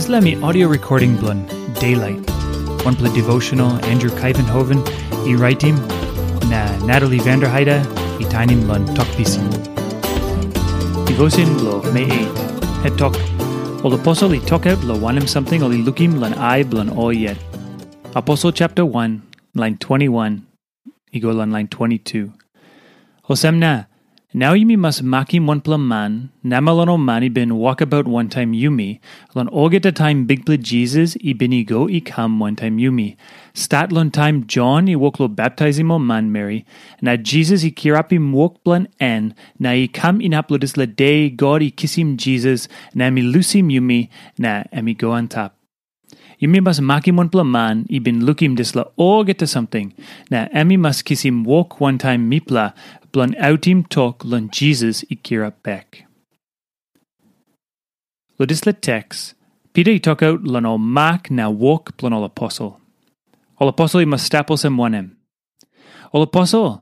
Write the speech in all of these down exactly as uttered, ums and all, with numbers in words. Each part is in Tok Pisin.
Dispela mi audio recording bilong Daylight. Wanpela devotional Andrew Kaivenhoven i raitim, na Natalie Vanderheide i tainim long Tok Pisin. Devotion bilong Mei eight. Het tok, ol aposel i tokaut long wanem samting ol i lukim long ai bilong ol yet. Aposel chapter one, line twenty-one, i go long line twenty-two. Olsem na, nau yumi mas makim wanpela man, namel long ol man i bin wokabaut wantaim yumi, long olgeta taim Bikpela Jisas i bin i go i kam wantaim yumi. Stat long taim Jon i wok long baptaisim ol manmeri, na Jisas i kirapim wok bilong en, na i kam inap long dispela de God i kisim Jisas, na em i lusim yumi, na em i go antap. Yumi mas makim wanpela man i bin lukim dispela olgeta samting, na em i mas kisim wok wantaim mipela bilong autim tok long Jisas i kirap bek. Long dispela teks, Pita i tokaut long ol mak na wok bilong ol aposel. Ol aposel i mas stap olsem wanem? Ol aposel,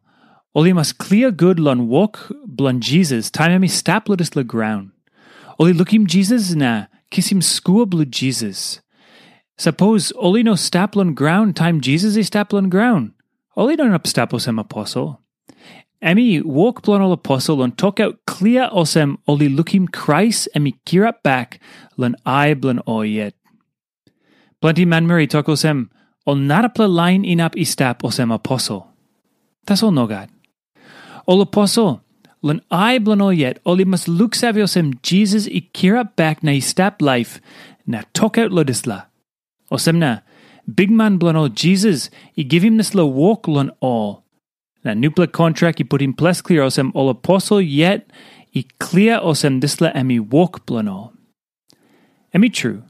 ol i mas klia gut long wok bilong Jisas taim em i stap long dispela graun. Ol i lukim Jisas na kisim skua bilong Jisas. Sapos ol i no stap long graun taim Jisas i stap long graun, ol i no inap stap olsem aposel. Em i wok bilong ol aposel long tokaut klia olsem ol i lukim Krais em i kirap bek long ai bilong ol yet. Planti manmeri tok olsem, ol narapela lain inap i stap olsem aposel. Tasol nogat. Ol aposel, long ai bilong ol yet, ol i mas luksave olsem Jisas i kirap bek na i stap laip, na tokaut long dispela. Olsem na, bikman bilong ol Jisas i givim dispela wok long ol. Na nupela kontrak i putim ples klia olsem ol aposel yet i klia olsem dispela em i wok bilong ol. Em i tru,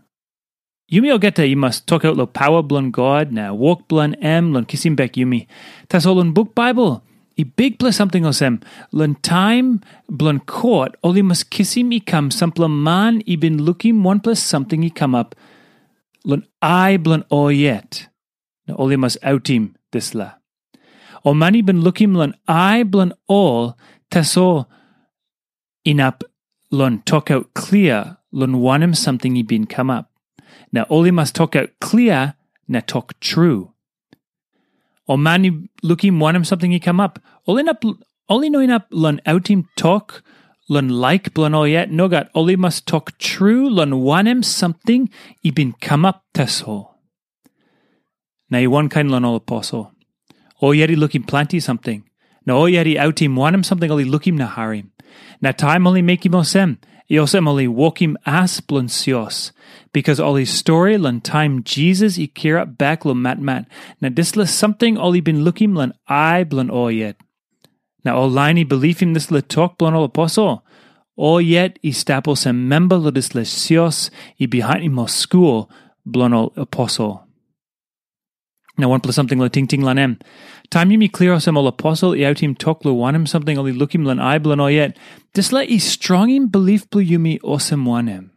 yumi olgeta i mas tokaut long pawa bilong God na wok bilong em long kisim bek yumi. Tasol long buk Baibel, i bikpela samting olsem, long taim bilong kot ol i mas kisim i kam sampela man i bin lukim wanpela samting i kamap long ai bilong ol yet, na ol i mas autim dispela. Ol man i bin lukim long ai bilong ol, tasol inap long tokaut klia long wanem samting i bin kamap. Na ol i mas tokaut klia na tok tru. Ol man i lukim wanem samting i kamap, ol inap ol i no inap long autim tok long laik bilong ol yet, nogat, ol i mas tok tru long wanem samting i bin kamap tasol. Na i wankain long ol aposel. Ol yet i lukim planti samting, na ol yet i autim wanem samting ol i lukim na harim. Na taim ol i mekim olsem, i olsem ol i wokim as bilong sios, bikas ol i stori long taim Jisas i kirap bek long matmat, na dispela samting ol i bin lukim long ai bilong ol yet. Na ol lain i bilipim dispela tok bilong ol aposel, ol yet i stap olsem memba long dispela sios i bihainim ol skul bilong ol aposel. Na wanpela samting long tingting long em. Taim yumi klia olsem ol aposel i autim tok long wanem samting ol i lukim long ai bilong ol yet, dispela i strongim bilip bilong yumi olsem wanem?